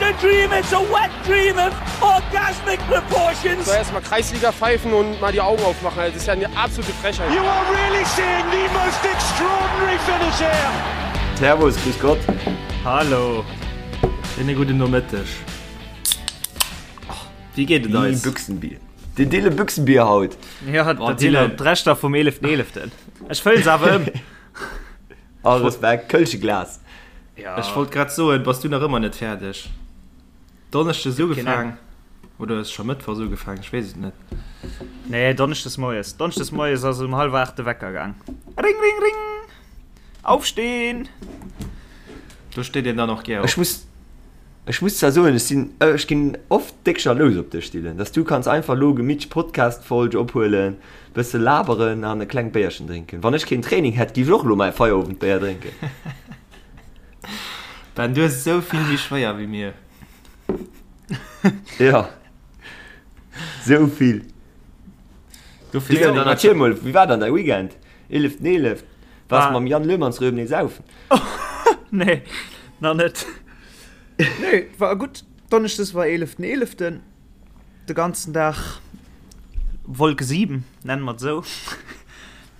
a dream, it's a wet dream of orgasmic proportions. So erstmal Kreisliga pfeifen und mal die Augen aufmachen. Das ist ja eine absolute Frechheit. You are really seeing the most extraordinary finish here. Servus, grüß Gott. Hallo. Schéine gudden Nomëtteg. Wéi geet et eis? Büchsenbier. Den Dille Büchsenbier haut. Ja, dat sinn d'Reschter vum 11.11. Ech fëllen se awer ëm. All Respekt, Kölsche Glas. Ja. Ech wollt grad soen, bass du nach ëmmer net fäerdeg? Donneschdes ugefaang oder ass scho Mëttwochs ugefaang? Ech weess et net. Nee, Donneschdes moies. Donneschdes moies ass um hallwer 8 de Wecker gaang. Ring, ring, ring! Aufstehen! Do steet een dann och gär op. Ech muss, ech muss zwar soen, ech sinn, ech ginn oft déck jalous op dech, Dylan, dass du kanns einfach lo gemittlech Podcast-Folg ophuelen, bësse laberen an e klengt Béierchen drénken. Wann ech keen Training hätt, géif ech och lo mäi Feierowendbéier drénken. Ben, du hues et esou vill méi schwéier wéi mir. Jo, esou vill. Dofir Dylan, dann erziel mol, wéi war dann däi Weekend? 11.11. Waars War. mam Jan Löhmannsröben nee saufen? Nee, nach net. Nee, war gutt. Donneschdes war 11.11. De ganzen Dag Wolke 7, nennen mer et esou,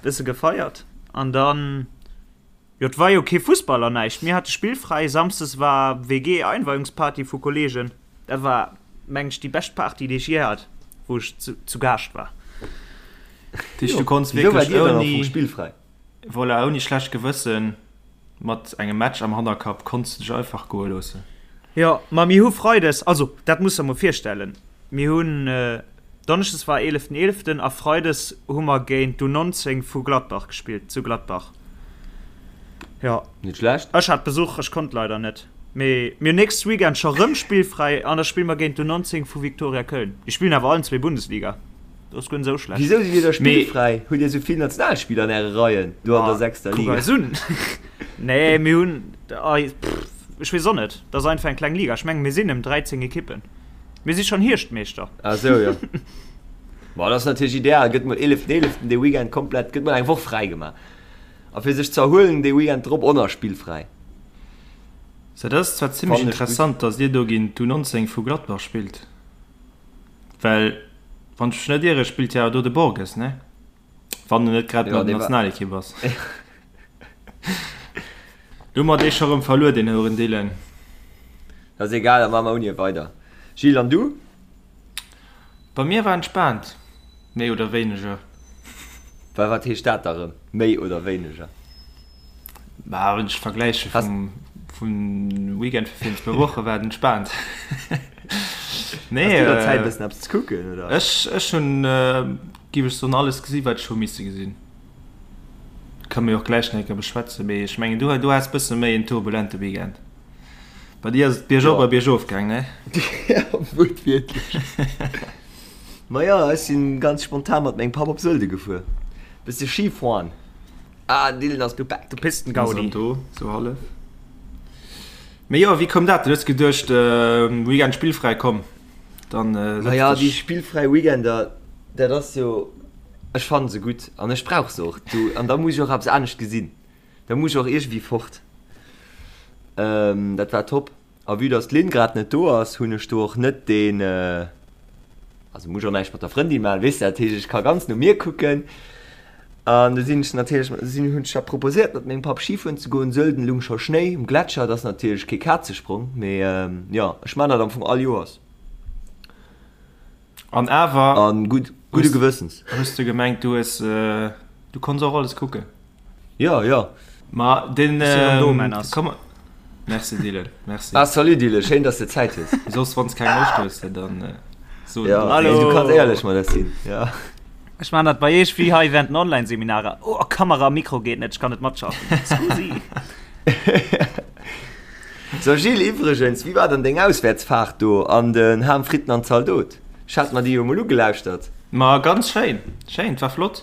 bësse gefeiert. An dann, jo, et war jo kee Fussball an näischt. Mir hate spillfräi. Samsdes war WG-Einweihungsparty vu Kolleegen. Dat war, meng ech, déi bescht Party, déi ech jee hat, wou ech zu, zu Gaascht war. Dich, du konns Wieso war wierklech dir dann am Fong ouni, spillfräi? voilà, ouni schlecht Gewëssen, mat engem Match am Hannerkapp, konns du dech einfach goe loossen. Jo, ma mir hu Freides, also dat muss der mol virstellen, mir hunn, Donneschdes war eeleften eeleften a Freides hu mer géint d'U19 vu Gladbach gespillt, zu Gladbach. Jo. Net schlecht. Ech hat Besuch, ech konnt leider net. Mee mir hunn nächst Weekend scho rëm spillfräi an da spille mer géint d'U19 vu Viktoria Köln. Déi spillen awer allen zwee Bundesliga. Dat ass guer net esou schlecht. Wisou sidd dir da spillfräi? Hutt dir esou vill Nationalspiller an äre Reien do an der sechster Kuck Liga? eis un. Nee, mir hunn, ech weess och net, dat ass einfach eng kleng Liga. Ech mengen, mir sinn ëm 13 Ekippen. Mir si schonn Hierschtmeeschter. Ah sou, jo. Ma dat ass natierlech ideal. Gëtt mol 11. 11. dee Weekend komplett, gëtt mol eng Woch fräi gemaach. A fir sech ze erhuelen, dee Weekend drop och nach spillfräi. So, dat ass zwar zimmlech Fannen ech gutt. interessant, datt dir do géint d'U19 vu Gladbach spillt. Well, wann ech mech net iere, spillt jo awer do de Borges, ne? Wann en net grad Jo, mat der dee war. Nationalekipp ass. Do hu mer dee scho rëm verluer, deen Hourendylan. Dat ass egal, da maache mer ouni e weider. Gilles, an du? Bei mir war entspaant, méi oder wéineger. Well wat heescht dat da rëm, méi oder wéineger? Bah, wann ech vergläiche vum, vum Weekend vu virun zwou Woche war et entspaant. Nee, Has du der Zäit äh, bëssen eppes ze kucken, oder? Ech, ech hunn, äh, giff ech soen, alles gesi wat ech hu misse gesinn. Kënne mer jo och gläich nach eng Kéier beschwätzen, mee ech mengen du, du has bësse méi en turbulente Weekend. Bei dir ass et biergop Ja. a biergof gaang, ne? Ja, wuertwiertlech. Ma jo, ech sinn ganz spontan mat mengem Papp op Sölde gefuer. Bësse Ski fueren. Ah, den Dylan ass Du, back. du Pistengaudi. Do, sou hallef. Mee jo, wéi koum dat? Du hues geduecht, Weekend spillfräi, komm, dann setz Naja, déi dech. spillfräi Weekender, dat ass jo, ech fannen se gutt an ech brauch se och. Du, an da muss ech och eppes anescht gesinn. Da muss ech och iergendwéi fort. Dat war top. A vue dass d'Lynn grad net do ass, hunn ech do och net deen, also muss ech och näischt mat der Frëndin maachen, weess de, dat heescht ech ka ganz no mir kucken. An du sinn ech natierlech, sinn, hunn ech da proposéiert mat mengem Papp Skifueren ze goen. Sölden lung scho Schnéi um Gletscher, dat ass natierlech kee Kazesprong, mee jo, ech maan dat am Fong all Joers. An awer An gutt, gudde Gewëssens. Hues de gemengt du hues, du konns och alles kucken? Jo, jo. Ma den, Ech sinn erëm do, Männers. komm, merci Dylan, merci. Ah, salut Dylan, schéin dass de Zäit hues. Soss wanns keng Loscht hues, dann so. Ja, Hallo. nee, du kanns éierlech mat eis sinn, ja. Ech maan dat bei iech wéi hei während den Online-Seminarer. Oh, Kamera a Mikro geet net, ech kann net matschaffen. Scusi. So Gilles, iwwregens, wéi war dann deng Auswäertsfaart do an den Ham Fritten an Zaldot? Ech hat mer déi jo mol ugelauschtert. Ma ganz schéin, schéin, et war flott.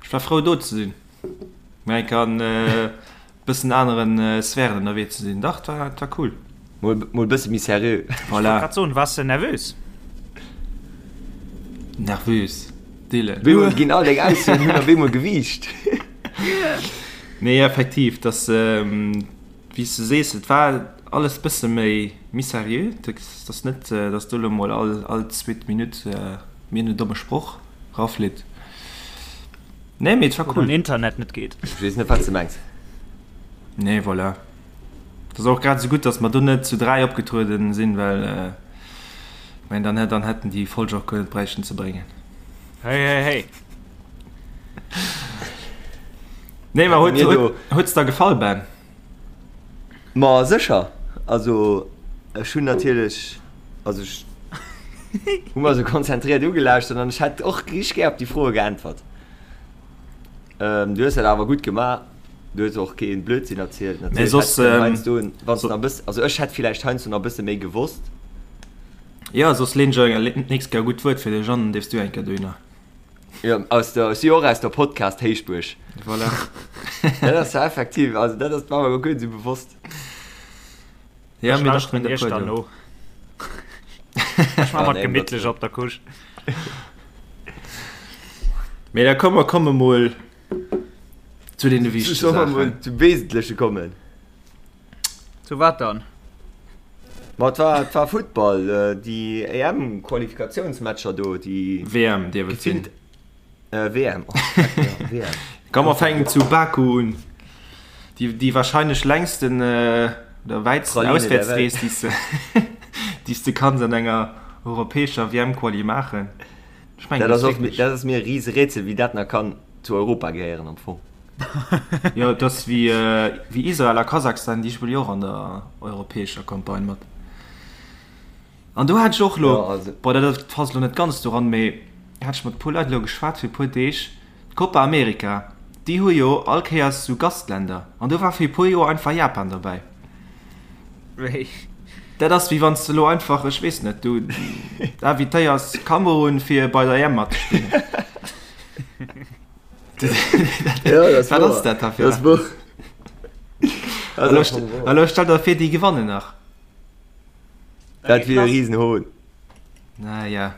Ech war frou do ze sinn, mol eng Kéier an e bëssen aneren Sphären ënnerwee ze sinn. Dach, et war, et war cool. Mol, mol bësse méi seriö. Ech wollt Voilà. grad soen, waars de nervös? Nervös, Dylan. Wéi mol ginn all deng Aussoen hunn op eemol Gewiicht. Nee, effektiv, dass, wéi s de sees, et war. alles bësse méi méi seriö. Dat ass net, datt do elo mol all all zweet Minutt mir en domme Sproch raflitt. Nee, mee et war Wou cool. den Internet net geet. Ech weess net, wat s de mengs. Nee, voilà. Et ass och grad esou gutt, datt mer do net zu 3 opgetrueden sinn, well ech mengen, dann dann hätten déi Folge och guer net bräichten ze bréngen. Hey, hey, hey. Nee, ma huet, Mir do. huet s der gefall, Ben? Ma sécher. Also ech hunn natierlech, also ech hu mer esou konzentriert ugelauschtert an ech hätt och richteg gär op déi Froe geäntwert. Ähm, du hues dat awer gutt gemaach. Du hues och keen Blödsinn erzielt. Mee Natierlech soss, hätt de ähm, heiansdo, wann s de nach e bëss, also ech hätt villäicht heiansdo nach e bësse méi gewosst. Jo, soss leen ech eng d'nächst Kéier e gutt Wuert fir dech an, dann dierfs du eng Kéier dohinner. Jo, aus der, ech si jo och aus der Podcast-Héichbuerg. Voilà. Dat ass ja effektiv, also dat ass war mer guer net esou bewosst. Ja, Ech mir dachten lauschteren der iech puer dann do. no. Ech maache Ja, mer nee, gemittlech dat, op der Couche. Mee da komm, mer komme mol zu deene wichtege Solle mer mol Saachen. zum Wesentleche kommen? Zu wat dann? Ma et war, et war Futtball, déi EM-Qualifikatiounsmatcher do, déi WM dierf et sinn. gefillt, WM, oh fuck, jo, WM. Komm, mer fänken zu Baku un. Déi, déi wahrscheinlech längsten oder wäitsten Praline der Welt. Auswäertsrees, déi s de, déi s de kanns an enger europäescher WM-Quali maachen. Ech mengen, Dat dat ass ass och, wierklech. dat ass mir e rise Rätsel, wéi dat nach kann zu Europa gehéieren am Fong. Jo, et ass wéi, wéi Israel a Kasachstan, déi spille jo och an der europäescher Campagne mat. An do hat ech och elo, Jo, also. bon, dat ass passt elo net ganz doran, mee hat ech mat e puer Leit elo geschwat fir e puer Deeg, d'Copa America, déi hu jo all Kéiers esou Gastländer an do war fir e puer Joer einfach Japan derbäi. Wéi? Dat ass wéi wann s de elo einfach, ech weess net, du invitéiers Kamerun fir bei der EM matzespillen. Ja, dat Wat ass dat da fir Dat ass eppes? Elo stell der vir, déi gewannen nach. Dat wier e Risenhohn. Naja.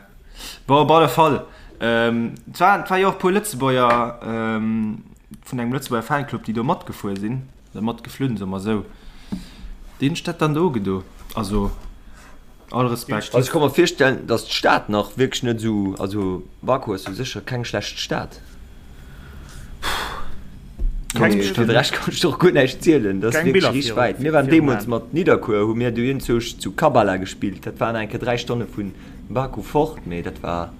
Bon, op alle Fall. Ähm, et war, et war jo och e puer Lëtzebuerger ähm, vun engem Lëtzebuerger Fanclub, déi do matgefuer sinn, oder matgeflunn, soe mer esou. Déi hunn sech dat dann do ugedo. Also, all Respekt. Also ech ka mer virstellen, datt d'Stad nach wierklech net esou, also Baku ass jo sécher keng schlecht Stad. Keng Mee fir de Rescht kann ech der och guer näischt zielen. Dat ass Keng wierklech Biller richteg viru wäit. Mir waren virum deemools Aen. mat Nidderkuer, hu mir do iergendzwousch zu Kabala gespillt. Dat waren enke 3 Stonne vu Baku fort, mee dat war,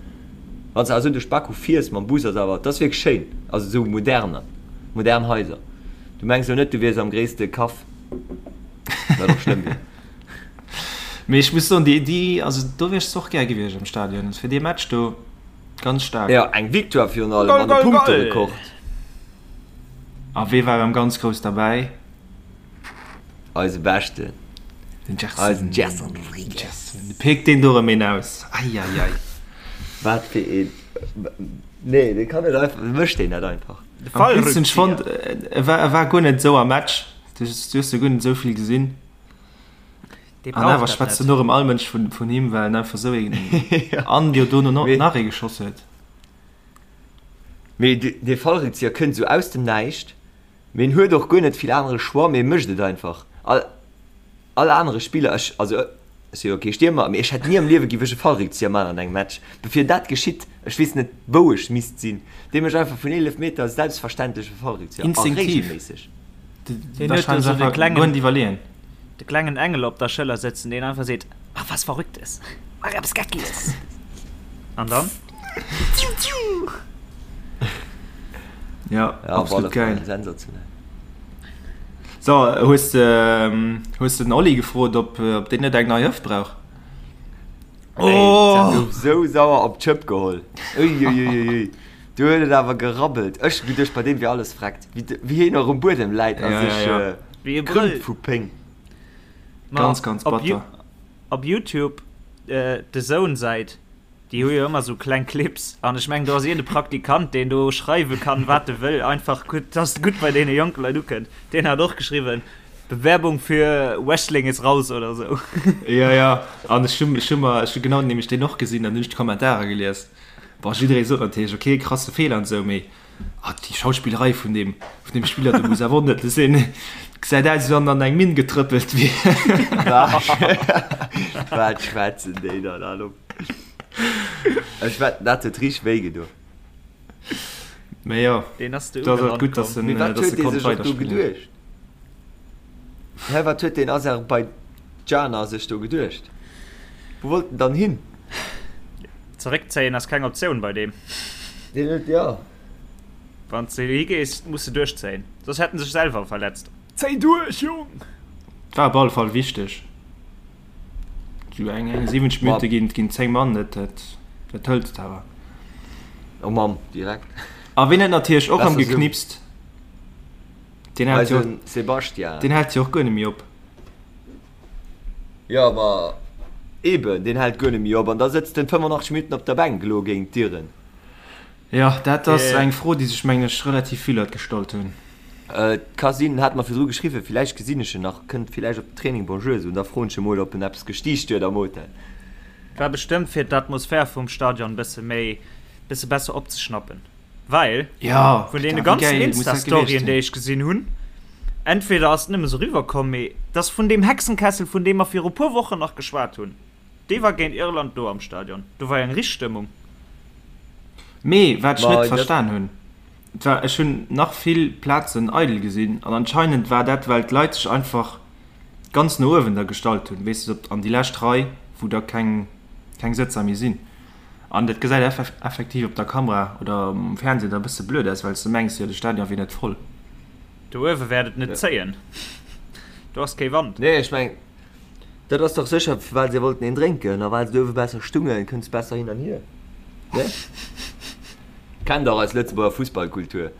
wann s de awer esou duerch Baku fiers mam Bus, ass awer, dat ass wierklech schéin. Also esou moderne, modern Haiser. Du mengs elo net, du wiers am gréisste Kaff, wat och schlëmm wier. Mee ech muss soen, déi, déi, also do wier ech zwar och gär gewiescht am Stadion, fir dee Match do. Ganz staark. Jo, eng Victoire virun allem Goal, an e goal, goal! Punkterekord. A wee war erëm ganz grouss derbäi? Eise Beschten. Den Gerson. Eisen Gerson Rodrigues. Gerson. De péckt deen do erëm een aus. Eieiei. Wat fir een. Nee, dee kann net einfach, wéi mécht deen dat einfach? De Am blödsten, ech fonnt, Fallrückzieher. e war, e war guer net esou am Match. Du hues jo guer net esou vill gesinn. Dee An brauch awer dat schwätzt net. en och ëm all Mënsch vun, vun him, well en einfach esou een an jo dono no, Mee, nach ee geschoss huet. mee de, dee Fallrückzieher kënnt esou aus dem Näischt, mee en huet och guer net vill anere Choix, mee e mécht et einfach. All, all anere Spiller, ech, also ech si jo kee Stiermer, mee ech hätt ni am Liewe giff ech e Fallrückzieher man an engem Match. Bevir dat geschitt, ech weess net wou ech misst sinn, dee mécht einfach vun 11 Meter selbstverständlech e Fallrückzieher a Instinktiv. regelméisseg. Deen huet do Wahrscheinlech esou de einfach guer klengen, net iwwerleeën. de klengen Engel op der Schëller sëtzen, deen einfach seet, Mach was Verrücktes, mach eppes Geckiges. An dann? Tiu, tiu! Ja, Ja, op alle absolut Fall geil. sensationell. So, hues de, hues de den Oli gefrot, ob, ob deen net eng nei Hëft brauch? Ey, oh! gouf sou sauer op d'Schëpp geholl. Uiuiuiui. Du huet et awer gerabbelt. Ech hu geduecht, bei deem wier alles vreckt. Wéi, wéi hien och um Buedem läit a Ja, sech ja, ja. äh, Wéi e krümmt Brëll. vu Péng. Ma Ganz, ganz op, Ju batter. op YouTube, äh, The Zone-Säit, déi hu jo ëmmer sou kleng Clips. An ech mengen, do ass iergend e Praktikant, deen do schreiwe kann, wat e wëll, einfach gutt, dass et gutt bei deene jonke Leit ukënnt. Deen hat och geschriwwen, Bewerbung für Wrestling ist raus oder sou. Ja, ja. An ech hu, ech hu mer, ech hu genau nämlech deen och gesinn an hunn ech d'Kommentarer gelies. Bon, jidderee sot natierlech, okay, krasse Feeler an esou, mee. Ah, déi Schauspillerei vun deem, vun deem Spiller, do muss awer och net sinn. Gesäit aus, wéi wann en an eng Minn getrëppelt wier. Wat schwätzen déi dann all op? Ech wetten, dat huet richteg wéi gedo. Mee jo, Deen ass do ass et gutt, dass en, Mee wat dass huet e dee konnt sech och do weiderspillen. geduecht? Hä, wat huet deen Aserbaidjaner sech do geduecht? Wou wollt en dann hin? Zeréckzéien ass keng Optioun bei deem. Deen huet, jo. Wann s de higees, muss de duerchzéien, soss hätt en sech selwer verletzt. Zéi duerch, Jong! War op alle Fall wichteg. Sou eng 70 Minutte ginn, ginn 10 Mann, dat, dat, dat hëlt et awer. Oh Mamm, direkt. A wien huet natierlech och Besser erëm sou. geknipst? Deen hält jo, Eisen Sebastian. deen hält jo och guer net méi op. Jo, ma eben, deen hält guer net méi op an da sëtzt en 85 Minutten op der Bänk elo géint d'Iren. Jo, dat ass eng Fro, déi sech, mengen ech, relativ vill Leit gestallt hunn. Et ka sinn, en hat mer virdru geschriwwen, villäicht gesinn ech en nach, kënnt villäicht op den Training Bonjour soen, da froen ech e mol, ob en eppes gestiicht huet am Hotel. War bestëmmt fir d'Atmosphär vum Stadion bësse méi, bësse besser opzeschnappen. Well Ja, vun deene wéi ganzen geil muss dat gewiescht Insta-Storyen, sinn. déi ech gesinn hunn, entweder ass et nëmme sou riwwerkomm, mee dass vun deem Hexenkessel, vun deem mer viru puer Wochen nach geschwat hunn, dee war géint Irland do am Stadion. Do war jo eng richteg Stëmmung. Mee wat ech Ma net dat. verstan hunn, et war, ech hunn nach vill Plazen eidel gesinn an anscheinend war dat, well d'Leit sech einfach ganz no uewen da gestallt hunn, weess de, op an déi lescht Rei, wou da keng, keng Sëtzer méi sinn. An dat gesäit effektiv op der Kamera oder um Fernseh da bësse blöd aus, well s de mengs, jo de Stadion wier net voll. Do uewe wäert et net zéien, do ass kee Wand. Nee, ech mengen, dat ass dach sécher, well se wollten een drénken a well se do uewe besser stungen, kënns besser hin an hier. Ne? Kennt dach eis Lëtzebuerger Fussballkultur.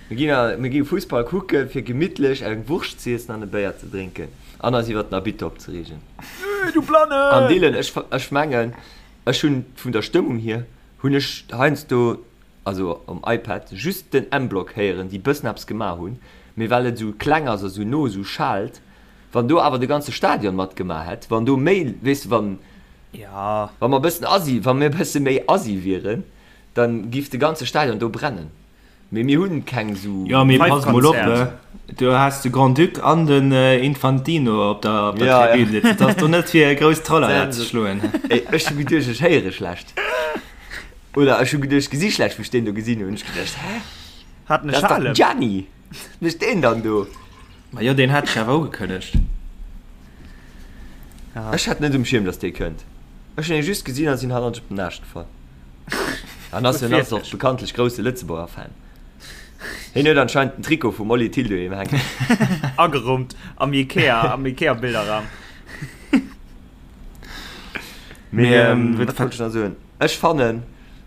Mir ginn a, mir gi Fussball kucken, fir gemittlech eng Wurscht z'iessen an e Béier ze drénken an eis iwwer den Arbitter opzereegen. Du Blannen! An Dylan, ech, ech mengen, Ech hunn vun der Stëmmung hier hunn ech heiansdo, also um iPad, just den M-Block héieren, déi bëssen eppes gemaach hunn, mee well et esou kleng ass a sou no esou schaalt, wann do awer de ganze Stadion matgemaach hätt, wann do méi, weess de, wann, wa mer bëssen assi, wa mir bësse méi assi wieren, dann giff de ganze Stadion do brennen. Mee mir hunn keng sou. Jo, mee pass mol op, do has de Grand-Duc an den Infantino op der, op der Ja, ja. Tribün sitzen. Dat ass do net fir e grousst Tralala ze schloen. Ey, ech hu geduecht, ech héiere schlecht. Oder ech hu geduecht, ech gesi schlecht, wou ech deen do gesinn hunn. Ech geduecht, hä? Hat en e Dat ass dach den Schalem? Gianni! Wat mécht deen dann do? Ma jo, deen hat sech awer ugekënnegt. Ech hat net um Schierm, dass dee kënnt. Ech hunn e just gesinn a sinn hannert op den Aascht gefall. An ass en ass och bekanntlech grousse Lëtzebuerger Fan. Hien huet anscheinend den Trikot vum Oli Thill doheem hänken. Agerummt am Ikea, am Ikea-Bilderraum. Mee ähm, wat wollt ech nach soen? Ech fannen,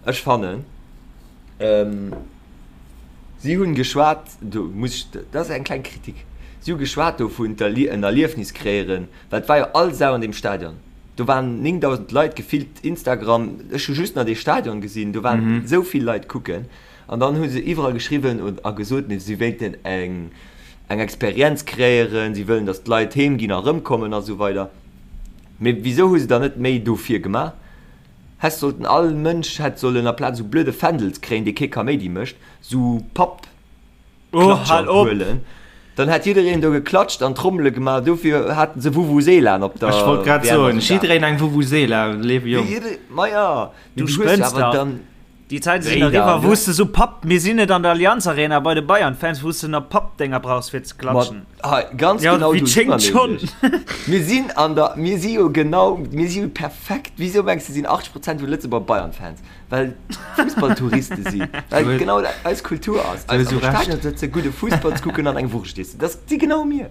ech fannen, ähm, si hunn geschwat, do muss ech, dat ass eng kleng Kritik, si hu geschwat dovun, d'Erlie en Erliefnis kreéieren, well et war jo all Sau an deem Stadion. Do waren 9.000 Leit gefillt, Instagram, ech hu just nach dee Stadion gesinn, do waren esou vill Leit kucken. An dann hu se iwwerall geschriwwen a gesot, si wéilten eng eng Experienz kreéieren, si wëllen, datt d'Leit heem ginn a rëmkommen a sou weider. Mee wisou hu se dann net méi dofir gemaach? Häss sollten, all Mënsch hätt sollen aplaz esou blöde Fändels kréien, dee kee Kaméidi mécht, esou Papp. Oh, hal Klatscher op! huelen. Dann hätt jiddereen do geklatscht an Trommele gemaach. Dofir haten se Vuvuzelaen op der Ech wollt grad WM soen, a Südafrika. jiddereen eng Vuvuzela, léiwe Jong. Jidde, ma ja, mee Du du hues jo spënns awer dach. dann. Déi Zäite sinn Wéi eriwwer, dann? wou s de sou Papp, mir sinn net an der Allianz Arena bei de Bayern-Fans, wou s de nach Pappdénger brauchs fir ze Ma klatschen. hei, ganz Ja, genau wéi do si d'schéngt mer schonn. nämlech. Mir sinn an der, mir si jo genau, mir si jo perfekt. Wisou mengs de sinn 80 Prozent vun Lëtzebuerger Bayern-Fans? Well Fussballtouriste sinn, well genau dat eis Kultur ass. Eis am Stadion sëtzen, gudde Fussball ze kucken an eng Wurscht iessen. Dat si genau mir.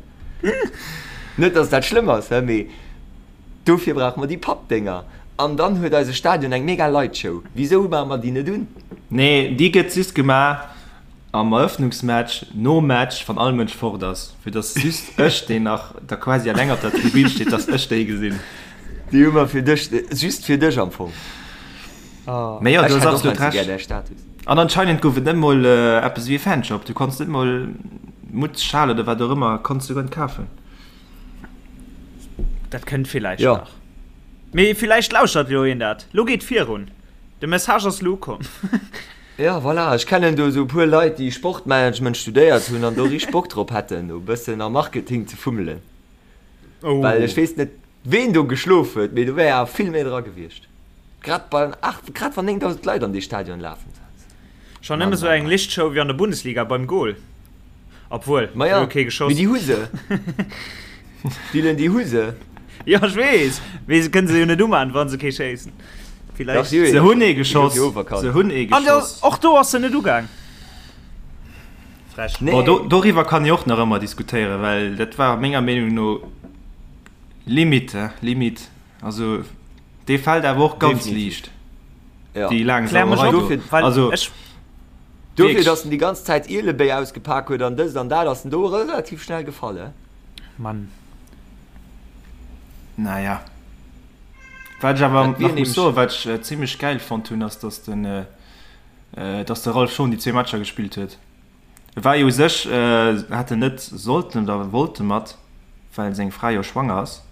Net, dass dat schlëmm ass, mee dofir brauche mer déi Pappdénger. An dann huet eise Stadion eng mega Lightshow. Wisou maache mer déi net un? Nee, déi gëtt just gemaach am Eröffnungsmatch, nom Match, wann all Mënsch fort ass, fir dass just ech, deen nach da quasi eleng op der Tribün steet, dass ech déi gesinn. Déi hu mer fir dech, just fir dech am Fong. Mee jo, Ech du hues hätt och absolut heiansdo gär Recht. däi Status. An anscheinend gouf et net mol eppes ewéi e Fanshop. Du konns net mol Mutz, Schal oder wat och ëmmer konns du guer net kafen. Dat kënnt villäicht Jo. nach. Mee villäicht lauschert jo een dat. Lo geet virun. De Message ass lo ukomm. Ja, voilà, ech kennen do esou e puer Leit, déi Sportmanagement studéiert hunn an do richteg Bock drop hätten, do e bëssen am Marketing ze fummelen. Oh. Well ech weess net, ween do geschlof huet, mee do wär awer vill méi dra gewiescht. Grad bei, ach, grad wann 9.000 Leit an dee Stadion lafen. Schon nëmme sou eng Lichtshow wéi an der Bundesliga beim Goal. Obwuel, Ma ja, kee geschoss. Mee déi hu se. Dylan, déi hu se. Jo, ech weess, mee se kënne se jo net uman, wa se kee schéissen. Villäicht. Se hunn ee geschoss. Se hunn ee geschoss. An och do ass se net ugaang. Frech. Nee. Bon, do, doriwwer kann ee och nach ëmmer diskutéieren, well dat war menger Meenung no limite, limite. Also dee fält awer och ganz liicht. Ja. Déi laang Sauerei do. Also, ech Dofir, dass en déi ganz Zäit Ielebéi ausgepak huet an dëst an dat, ass en do relativ schnell gefall, he? Mann. Naja. Wat ech awer nach muss soen, wat ech zimmlech gäil fonnt hunn, ass, dass den, dass de Ralph Schon déi zwee Matcher gespillt huet. E war jo u sech, hätt en net sollten oder wollte mat, well seng Fra jo schwanger ass.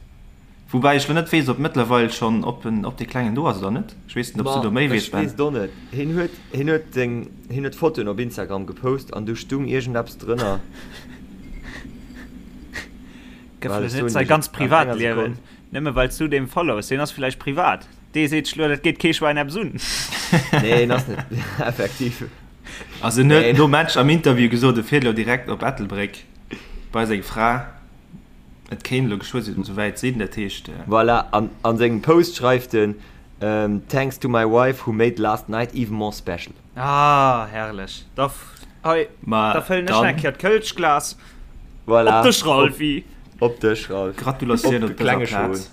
Woubäi ech lo net weess, ob mëttlerweil schonn, ob en, ob dee Klengen do ass oder net. Ech weess net, ob s du do méi weess, Ben. Ech weess et och net. Hien huet, hien huet seng, hien huet Fotoen op Instagram gepost an do stung iergendeppes drënner. Gëff elo net säi ganz Privatliewen, nëmme well s du deem follows. Deen ass villäicht privat. Dee seet sech lo, dat geet kee Schwäin eppes un. Nee, en ass net, effektiv. Also en huet nom Match am Interview gesot, e fiert elo direkt op Ettelbréck bei seng Fra. Et kéint elo geschwë sou wäit sinn, dat heescht. Voilà, an a sengem Post schreift en, Thanks to my wife who made last night even more special. Ah, herrlech. Da, hei, da fëllen ech nach eng Kéier d'Kölschglas. Voilà. Op dech, Ralphy. Op dech, Ralph. Gratulatioun op dëser Plaz.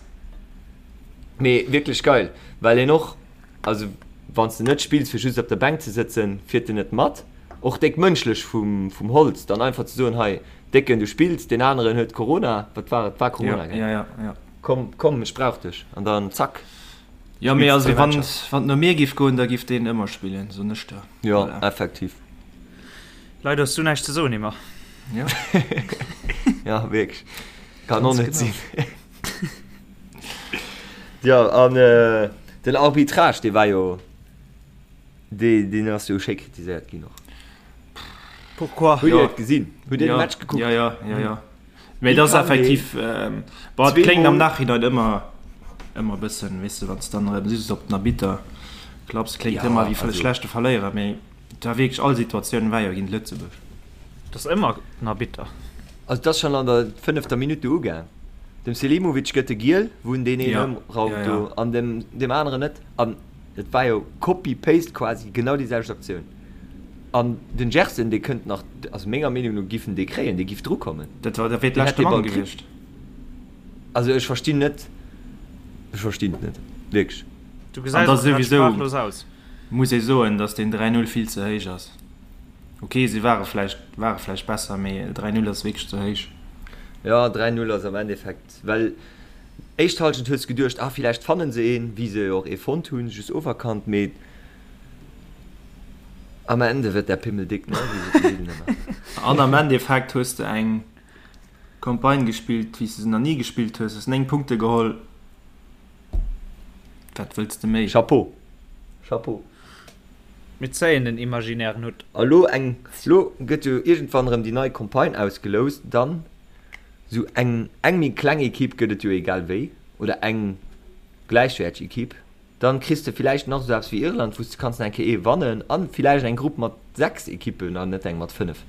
Mee wierklech geil, well een och, Also wann s de net spills fir just op der Bänk ze sëtzen, fiert en net mat. Och déck mënschlech vum vum Holtz dann einfach ze soen, hei Décken du spills, deen aneren huet Corona, wat war et, war Corona gell? Ja, ja, ja. Komm, komm ech brauch dech an dann zack. Jo mee also wann wann et no mir giff goen, da giff deen ëmmer spillen, soen ech der. Jo, effektiv. Leider hues du näischt ze soen, Emma. Jo. Ja, wierklech. Kann och net sinn. Jo, an den Arbitrage, dee war jo, dee, deen ass jo schéi kritiséiert ginn och. Pourquoi? Hutt Dir et gesinn? Hutt Dir de Match gekuckt? Jo, jo, jo, jo. Mee et ass effektiv, bon, et kléngt am Nachhinein ëmmer, ëmmer e bëssen, weess de, wann s de dann erëm just op den Arbitter klapps, kléngt ëmmer wéi schlechte Verléierer, mee Et war wierklech, all Situatioun war jo géint Lëtzebuerg. Et ass ëmmer den Arbitter. Also et ass schonn an der fënnefter Minutt do ugaang. Dem Selimovic gëtt e Giel, wou en deen een ëmraumt do an dem deem aneren net. An et war jo copy paste quasi genau déi selwecht Aktioun. An den Gerson dee kënnt nach, also menger Meenung no giff en dee kréien, dee giff drukommen. Dat war, dat wier d'leschte Mann gewiescht. Also ech verstinn net, ech verstinn et net, wierklech. Du gesäis och grad sprachlos aus. Muss ee soen, dass deen 3, 0 vill ze héich ass. Ok, si ware vläicht, ware vläicht besser, mee 3, 0 ass wierklech ze héich. Jo, 3, 0 ass am Endeffekt, well éischt Halschent hues de geduecht, ah villäicht fannen se een, wéi se jo och ee fonnt hunn, just oferkannt, mee am Ende wird der Pimmel dick, ne, wéi sot den Dylan ëmmer. An am Endeffekt hues de eng Campagne gespillt, wéi s de se nach ni gespillt hues, hues 9 Punkte geholl. Wat wëlls de méi? Chapeau! Chapeau! Mir zéien den imaginären Hutt. A lo eng, lo gëtt jo iergendwann erëm déi nei Campagne ausgeloust, dann sou eng eng méi kleng Equipe gëtt et jo egal wéi, oder eng gläichwäerteg Equipe. Dann kriss de villäicht nach esou eppes wéi Irland, wou s de kanns nach eng Kéier ee wannen an villäicht eng Grupp mat 6 Equippen an net eng mat 5.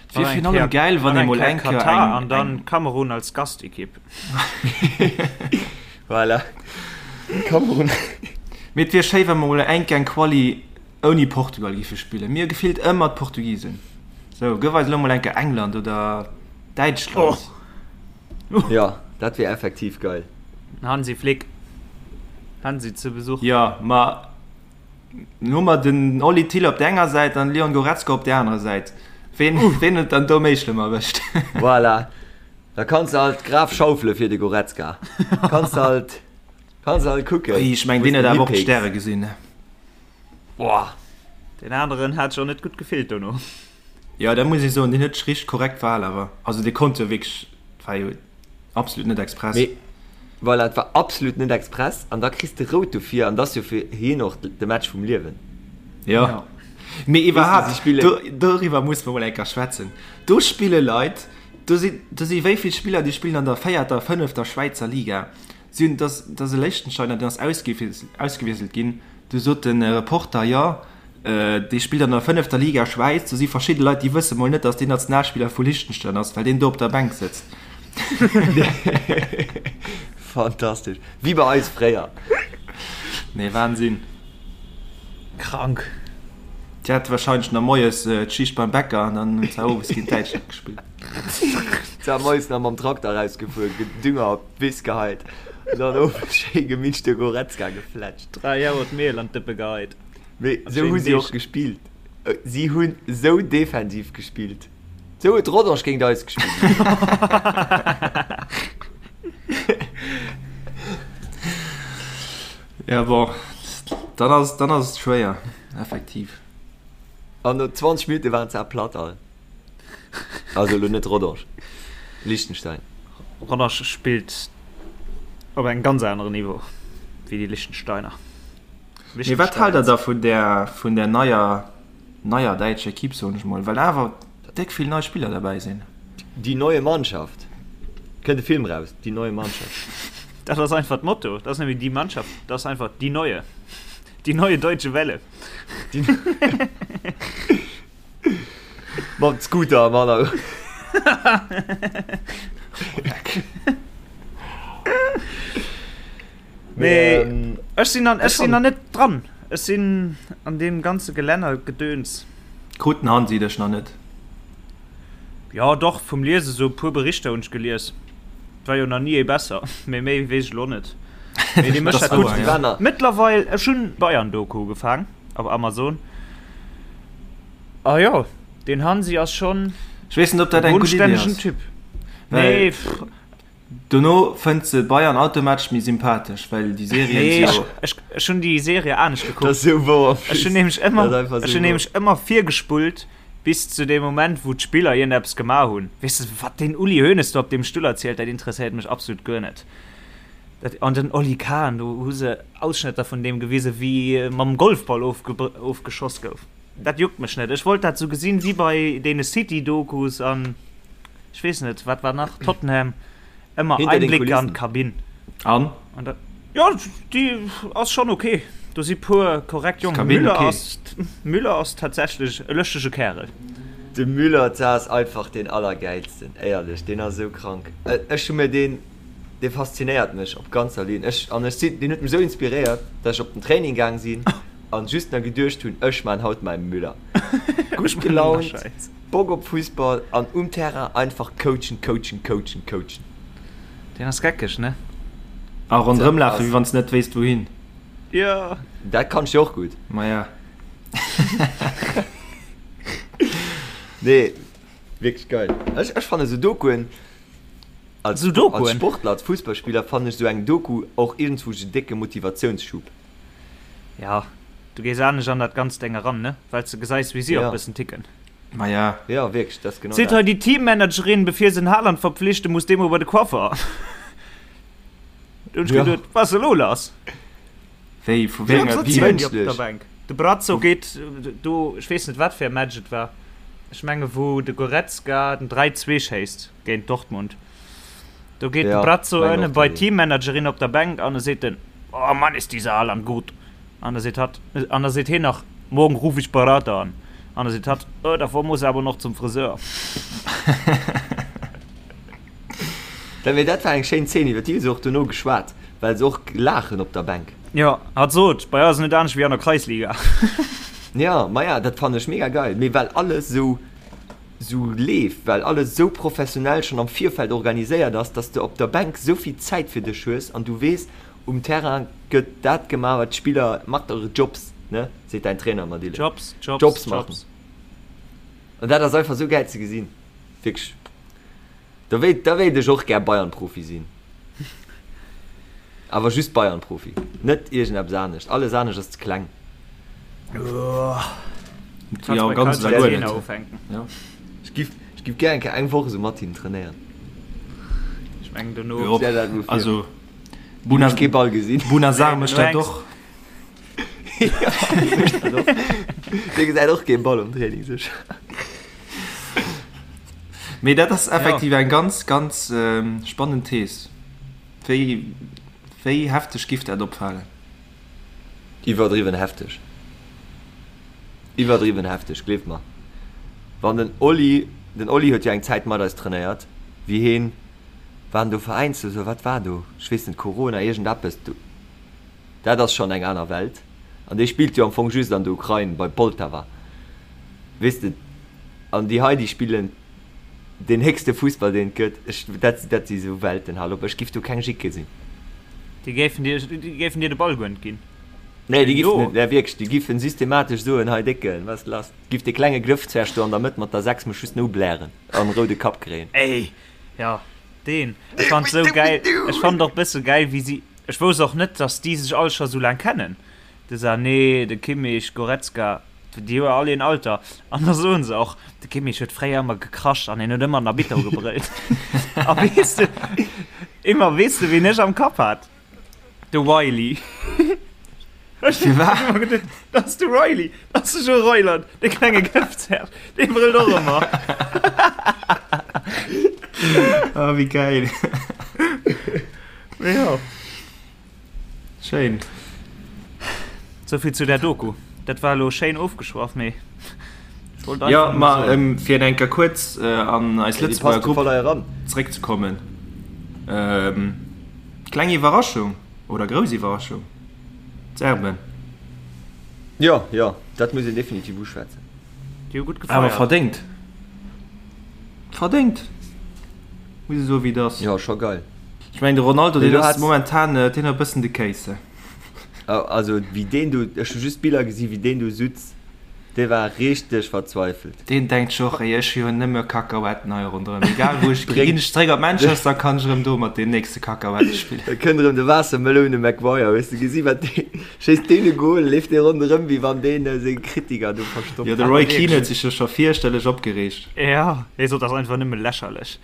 Et wier virun allem gäil, wann ee mol eng Kéier Katar an dann Kamerun als Gastequipe. Voilà. Kamerun. Mee et wier schéi, wa mer mol eng Kéier eng Quali ouni Portugal giffe spillen. Mir hu gefillt ëmmer d'Portugisen. Sou, gëff eis elo mol eng Kéier England oder Däitschland. Jo, dat wier effektiv geil. Hansi Flick. Hansi zu Besuch. Jo, ma hu mer den Oli Thill op der enger Säit an Leon Goretzka op der anerer Säit. Ween, ween huet dann do méi schlëmm erwëscht? Voilà. Da kanns de halt d'Graf schaufele fir de Goretzka. Kanns de halt, kanns de halt kucken. Ui, ech meng, deen huet awer och d'Stäre gesinn. Boah. Deen aneren hat sech och net gutt gefillt dono. Jo, dat muss ech soen, deen huet sech richteg korrekt verhal awer. Also dee konnt jo wierklech, et war jo absolut net express. Mee voilà, et war absolut net express an da kriss de rout dofir an dat ass jo fir hien och de Match vum Liewen. Jo. Mee iwwerhaapt, doriwwer musse mer mol eng Kéier schwätzen. Do spille Leit, do sinn, do si wéi vill Spiller, déi spillen an der véierter, fënnefter Schwäizer Liga. Si hunn, dass, dass e Liechtensteiner, deen ass ausgewiesselt ginn, du sot de Reporter, jo, dee spillt an der fënnefter Liga Schwäiz, do si verschidde Leit, déi wësse mol net, dass deen Nationalspiller vu Liechtenstein ass, well deen do op der Bänk sëtzt. Fantastesch. Wéi bei eis fréier. Nee, Wahnsinn. Krank. Déi hate wahrscheinlech nach moies d'Schicht beim Bäcker an dann hunn se owes géint Däitschland gespillt. Se hu moies nach mam Trakter erausgefuer, Dünger op d'Wiss geheit an dann owes schéi gemittlech de Goretzka gefletscht. 3 Auer d'Miel an d'Dëppe geheit. Mee sou hu si och gespillt. Si hunn sou defensiv gespillt. Sou huet Rodange géint eis gespillt. Ja bon, dann ass, dann ass et schwéier, effektiv. An no 20 Minutte waren se platt all. Also elo net Rodange, Liechtenstein. Rodange spillt op engem ganz aneren Niveau wéi déi Liechtensteiner. Mee wat haalt der da vun där, vun där neier, neier däitscher Equipe, soen ech mol, well awer déck vill nei Spiller derbäi sinn? Die neue Mannschaft. Kënnt e Film raus, Die neue Mannschaft. Dat ass einfach d'Motto, dat ass net méi die Mannschaft, dat ass einfach die neue. Die neue deutsche Welle. Mam Scooter am Hannergrond. Mee ech sinn an, ech sinn nach net dran. Ech sinn an deem ganze Gelännergedöns. Krut den Hansi dech nach net? Jo doch, vum Liese sou e puer Berichter hunn ech gelies. Et war jo nach ni ee besser, mee méi weess ech elo net. Mee dee mécht dat gutt. Mëttlerweil, ech hunn d'Bayern-Doku ugefaang op Amazon. A jo, deen Hansi ass schonn Ech weess net, ob dat e eng gutt Iddi bodenstännegen ass. Typ. Well Nee, pff. dono fënnt se Bayern automatesch méi sympathesch, well déi Serien Nee, si ech, jo. ech, ech hunn déi Serie anescht Dat gekuckt. ass sou wouer. Ech hunn nämlech Dat ëmmer, ass einfach ech sou hunn wouer. nämlech ëmmer virgespullt bis zu deem Moment, wou d'Spiller iergendeppes gemaach hunn. Weess de, wat deen Uli Hoeneß do op deem Stull erzielt, dat interesséiert mech absolut guer net. Dat, an den Oli Kahn, do hu se Ausschnëtter vun deem gewisen, wéi e mam Golfball ofge, ofgeschoss gouf. Dat juckt mech net. Ech wollt dat sou gesinn wéi bei deene City-Dokus an ech weess net, wat war nach, Tottenham, ëmmer Hinter den Einblicke an Kulissen. d'Kabinn. An? An dat, jo, déi ass schonn ok. Do si puer korrekt Jongen. D'Kabinn Müller ok. ass, Müller ass tatsächlech e lëschtege Kärel. De Müller ass einfach deen allergäilsten, éierlech, deen ass esou krank. Ech hu mir deen, dee faszinéiert mech op ganzer Linn. Ech, an ech sinn, deen huet mech esou inspiréiert, dass ech op den Training gaang sinn an just na geduecht hunn, ech maan haut mäi Müller. Gutt gelaunt, Bock op Fussball an um Terrain einfach coachen, coachen, coachen, coachen. Deen ass geckeg, ne? A ronderëm lafen, wéi wann s net wéisst wouhin. Jo. Dat kann ech jo och gutt. Maja. Nee, wierklech geil. Ech, ech fannen esou Dokuen, als, Esou Dokuen? als Sportler, als Fussballspiller fannen ech esou eng Doku och iergendswou en décke Motivatiounsschub. Ja, du gees anescht an dat ganzt Deng eran, ne? Well s de gesäis, wéi si och Ja. bëssen ticken. Maja. Ja, wierklech, dat ass genau Seet hei dat. déi Teammanagerin, bevir se den Haaland verpflichten, muss dee mol bei de Coiffer. Do hunn ech Ja. geduet, wat ass elo lass? Wéi, vu wéi enger Wéi Team? mënschlech. Op der Bänk. De Brazzo geet do, ech weess net wat fir e Match et war, ech menge wou de Goretzka den 3, 2 schéisst géint Dortmund. Do geet de Brazzo ënne bei d'Teammanagerin op der Bänk an e seet den, Oh Mann, ist dieser Haaland gut! An da seet hatt, an da seet hien nach, Morgen ruf ich Berater an. An da seet hatt, Oh, davor muss er aber noch zum Friseur. Dat, mee dat war eng schéin Zeen, iwwer déi hu se och dono geschwat, well se och laachen op der Bänk. Jo, hatt sot, bei eis ass et net anescht wéi an der Kreisliga. Jo, maja, dat fannen ech mega geil, mee well alles esou, esou leeft, well alles esou professionell schonn am Virfeld organiséiert ass, dass de op der Bänk esou vill Zäit fir dech hues an du weess, um Terrain gëtt dat gemaach, wat d'Spiller, macht eure Jobs, ne, seet däin Trainer ëmmer, Dylan. Jobs, Jobs, Jobs machen. Jobs. An dat ass einfach esou gäil ze gesinn, wierklech. Da wéilt, da wéilt ech och gär Bayern-Profi sinn. Awer just Bayern-Profi, net iergendeppes anescht. Alles anescht ass ze kleng. Kannst Jo, bei ganz Karl oder guer Jena net. ufänken. Ja. Ech giff, ech giff gär eng Kéier eng Woch esou mat hinnen trainéieren. Ech mengen dono. Jo, Stell dat mol vir. also Hunn ech kee Ball gesinn. Bouna Sarr Nee, mécht dono dat hänks. och. Dee gesäit och kee Ball um Training sécher. Mee dat ass effektiv eng ganz, ganz spannend Thees. Wéi, wéi hefteg giff dat opfalen? Iwwerdriwwen hefteg. Iwwerdriwwen hefteg, gleeft mer. Wann den Oli, den Oli huet jo eng Zäit mat eis trainéiert, wéi heen, war en do veräinslos oder wat war do? Ech weess net, Corona, iergendeppes, do, dat ass schonn eng aner Welt. An dee spillt jo am Fong just an der Ukrain bei Poltawa, weess de. An déi hei, déi spillen deen héchste Fussball, deen et gëtt. Ech, dat, dat si sou Welten, hal op, ech giff do keng Jick gesinn. Déi géifen dir, déi géifen dir de Ball guer net ginn. Nee, déi giffen net, nee wierklech, déi giffen systematesch soen, hei Décken, wat ass lass? Giff dee klenge Glëffzwerg do an der Mëtt mat der 6 mech just no blären an roude Kapp kréien. Ey, jo, deen. Ech fand sou gäil, ech fand och bësse gäil, wéi si, ech wousst och net, dass déi sech all scho sou laang kennen. De Sané, de Kimmich, Goretzka, déi hu jo all een Alter. An da soen se och, de Kimmich huet fréier ëmmer gekrasch an hien huet ëmmer den Arbitter ugebrëllt. A weess de, ëmmer, weess de wien ech am Kapp hat? De Wiley. Ech hunn ëmmer geduet, dat ass de Riley, dat ass de Joe Reuland, de klenge Gëftzerg, dee brëllt och ëmmer. Oh, wéi gäil. Jo. Schéin. Souvill zu där Doku. Dat war elo schéin ofgeschwaff, mee ech wollt einfach Jo, ma fir eng Kéier kuerz an eis Lëtzebuerger Grupp zeréckzekommen, kleng Iwwerraschung oder grouss Iwwerraschung, d'Serben. Jo, jo, dat muss een definitiv uschwätzen. Déi hu gutt gefeiert. Awer verdéngt. Verdéngt! Muss ee soen, wéi et ass. Jo, scho geil. Ech mengen de Ronaldo deen ass momentan deen huet e bëssen de Kéis. Also wéi deen do, ech hu just Biller gesi wéi deen do sutz, dee war richteg verzweifelt. Deen denkt sech och, ey ech hu jo nëmme Kakahuetten hei ronderëm, egal wou ech ginn, ginn ech zeréck op Manchester, kann ech erëm do mat deem nächste Kakahuette spillen. Da kënnt erëm de Waassermeloune Maguire, hues de gesi wat dee schéisst, deen e Goal, leeft dee ronderëm wéi wann deen seng Kritiker do verstoppt Jo de Roy Keane huet sech jo scho fierchterlech opgereegt. Jo, hie sot, dat ass einfach nëmme lächerlech.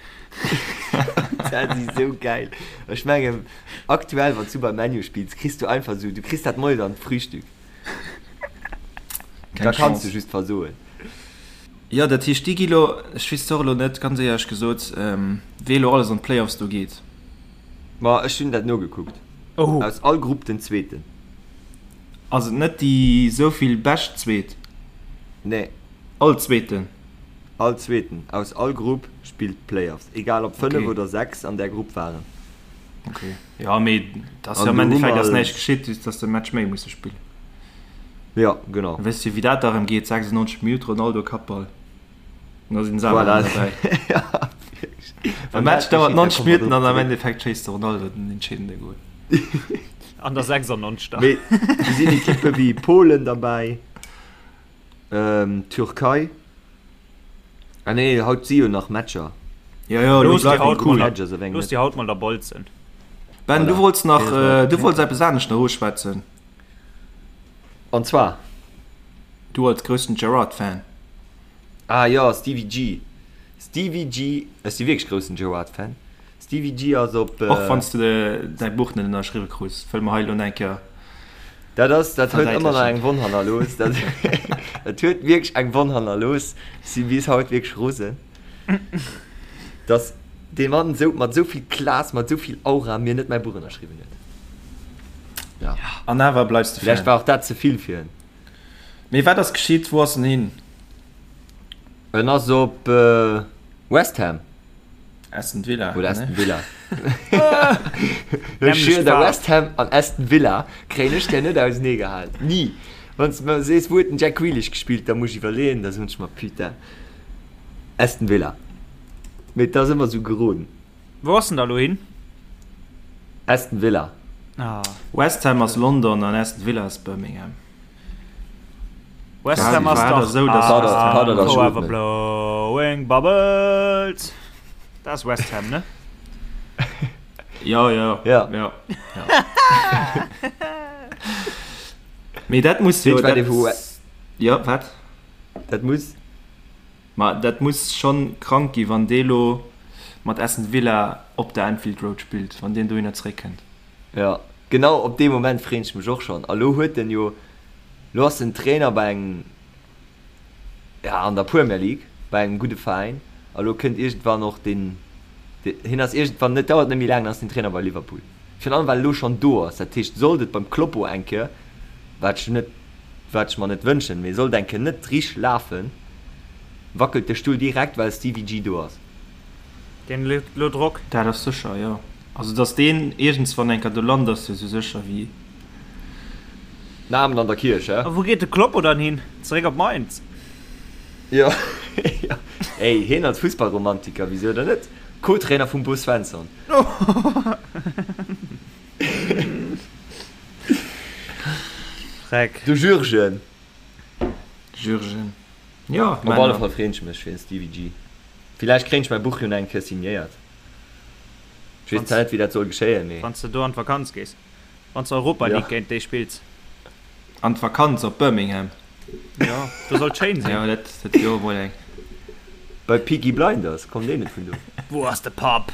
Dat ass esou gäil. Ech mengen, aktuell, wann s du beim ManU spills, kriss du einfach esou, du kriss dat moies an d'Frühstück. Da kanns du just versoen. Jo, dat heescht, déi gi lo, ech weess et och elo net, ganz éierlech gesot, wee elo alles an d'Playoffs do geet. Ma ech hunn dat nogekuckt. Aus all Grupp den Zweeten. Ass et net déi souvill bescht Zweet? Nee. All Zweeten? All Zweeten aus all Grupp spillt d'Playoffs, egal ob 5 okay. oder 6 an där Grupp waren. Okay. Ja, mee dat ass jo am Endeffekt ass näischt geschitt, just dass de Match méi musse spillen. Ja, genau. Weess du, wéi dat da rëm geet? 96 Minutt Ronaldo Kappball. Und da sinn se awer Voilà. dabei. ja, De Match dauert 90 Minuten an am Endeffekt schéisst de Ronaldo den entscheedende Goal. An der 96. Mee do sinn Ekippe wéi Polen derbäi. Türkei. Ah nee, haut si jo nach Matcher. Jo, jo, elo bleift et cool. Looss déi haut mol da bolzen. Ben, du wollts nach, du wollts eppes anescht nach uschwätzen. An zwar? Du als groussen Gerrard-Fan. Ah jo, Stevie G. Stevie G, ech si wierklech groussen Gerrard-Fan. Stevie G ass op. Och wann s de däi Buch net ënnerschriwwe krus, wëll mer hei elo eng Kéier. Dat ass, dat huet ëmmer nach eng Wonn hannerlooss. Dat, dat huet wierklech eng Wonn hannerlooss. Ech si bis haut wierklech rosen, dass dee Mann esou, mat esou vill Class, mat esou vill Aura mir net mäi Buch ënnerschriwwen huet. Ja. An awer bleifs de Fan. Vläicht war och dat ze vill fir en. Mee wat ass geschitt? Wou ass en hin? En ass op West Ham. Aston Villa. Oder Aston Villa. Ech schwier der, West Ham an Aston Villa kréien ech der net ausenee gehalen. Ni. Wann s de mer sees, wou huet den Jack Grealish gespillt, da muss ech iwwerleeën, da soen ech mer, putain, Aston Villa. Mee et ass ëmmer esou geroden. Wou ass en da lo hin? Aston Villa. Ah. West Ham ass London an Aston Villa ass Birmingham. West Ham ass dach esou, dass West Ham forever blowing bubbles. Dat ass West Ham, ne? Jo, jo. Ja. Jo. Mee dat muss jo, dat, jo, wat? Dat muss. Ma dat muss schonn krank gi wann dee lo mat Aston Villa op der Anfield Road spillt, wann deen dohinner zeréckkënnt. Jo, genau op dee Moment freen ech mech och schonn. A lo huet en jo. Lo ass en Trainer bei engem, ja, an der Premier League, bei engem gudde Veräin. A lo kënnt iergendwann och deen, hien ass iergendwann, net, dauert net méi laang, dann ass den Trainer bei Liverpool. Virun allem well e lo schonn do ass. Dat heescht, sollt et beim Kloppo eng Kéier, wat ech net, wat ech mer net wënschen, mee sollt eng Kéier net richteg lafen, wackelt de Stull direkt, well Stevie G do ass. Deen huet lo Drock. Dat ass sécher, jo. Also datt deen iergendswann eng Kéier do lant, ass jo esou sécher wéi. Den Amen an der Kierch, hä? A wou geet de Kloppo dann hin? Zeréck op Mainz? Jo, jo. Ey, hien als Fussballromantiker, wisou dann net? Co-Trainer vum Bo Svensson. Freck. De Jürgen. Jürgen. Jo, Op alle Fall freen ech mech fir den Stevie G. Villäicht kréien ech mäi Buch jo nach eng Kéier signéiert. Ech weess zwar net wéi dat soll geschéien, mee. Wann s de do an d'Vakanz gees. Wann s de Europa League géint déi spills. An d'Vakanz op Birmingham. Jo, do soll et schéin sinn. Jo, dat dat wier och emol eng. Bei Peaky Blinders, kommt deen net vun do? Wou ass de Papp?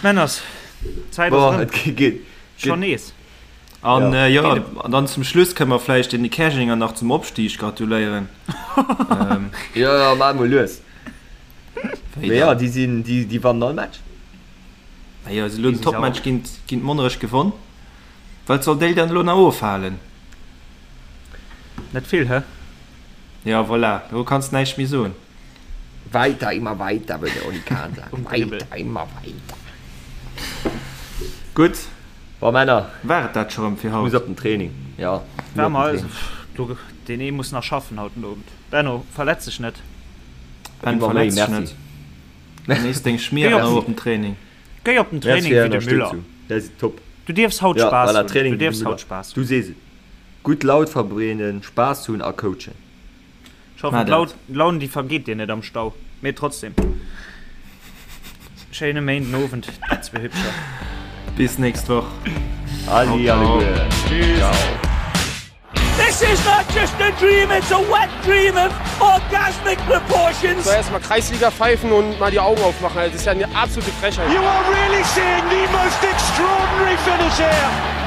Männers, d'Zäit ass Boah, erëm. et geet. Schonn nees. An jo, an dann zum Schluss kënne mer vläicht den Käerjenger nach zum Opstieg gratuléieren. Jo, jo, maach emol lues. Mee jo, déi sinn, déi, déi wannen all Match. Ma jo, se elo den Topmatch géint, géint Monnerech gewonn. Wat soll déi dann elo nach ofhalen? Net vill, hä? Jo, voilà, do kanns näischt méi soen. Weiter, immer weiter, würde Oli Kahn sagen. Weiter, immer weiter. Gutt. Bon, Männer. War et dat scho rëm fir haut? Muss op den Training, jo. War mer, du, deen ee muss nach schaffen haut den Owend. Benno, verletz dech net. Ben, verletz dech net. Genéiss deng Schmier an op den Training. Géi op den Training wéi de Müller. Dat ass top. Du dierfs haut Spaass hunn. Du dierfs haut Spaass hunn. Du sees et. Gutt Laut verbreeden, Spaass hunn a coachen. Ech hoffen d'Laun déi vergeet dir net am Stau, mee trotzdem schéine Méinden Owend dir zwee Hübscher. Bis nächst Woch. Adi alleguer. Ciao. This is not just a dream, it's a wet dream of orgasmic proportions. So erstmal Kreisliga pfeifen und mal die Augen aufmachen. Das ist ja eine absolute Frechheit. You are really seeing the most extraordinary finish here.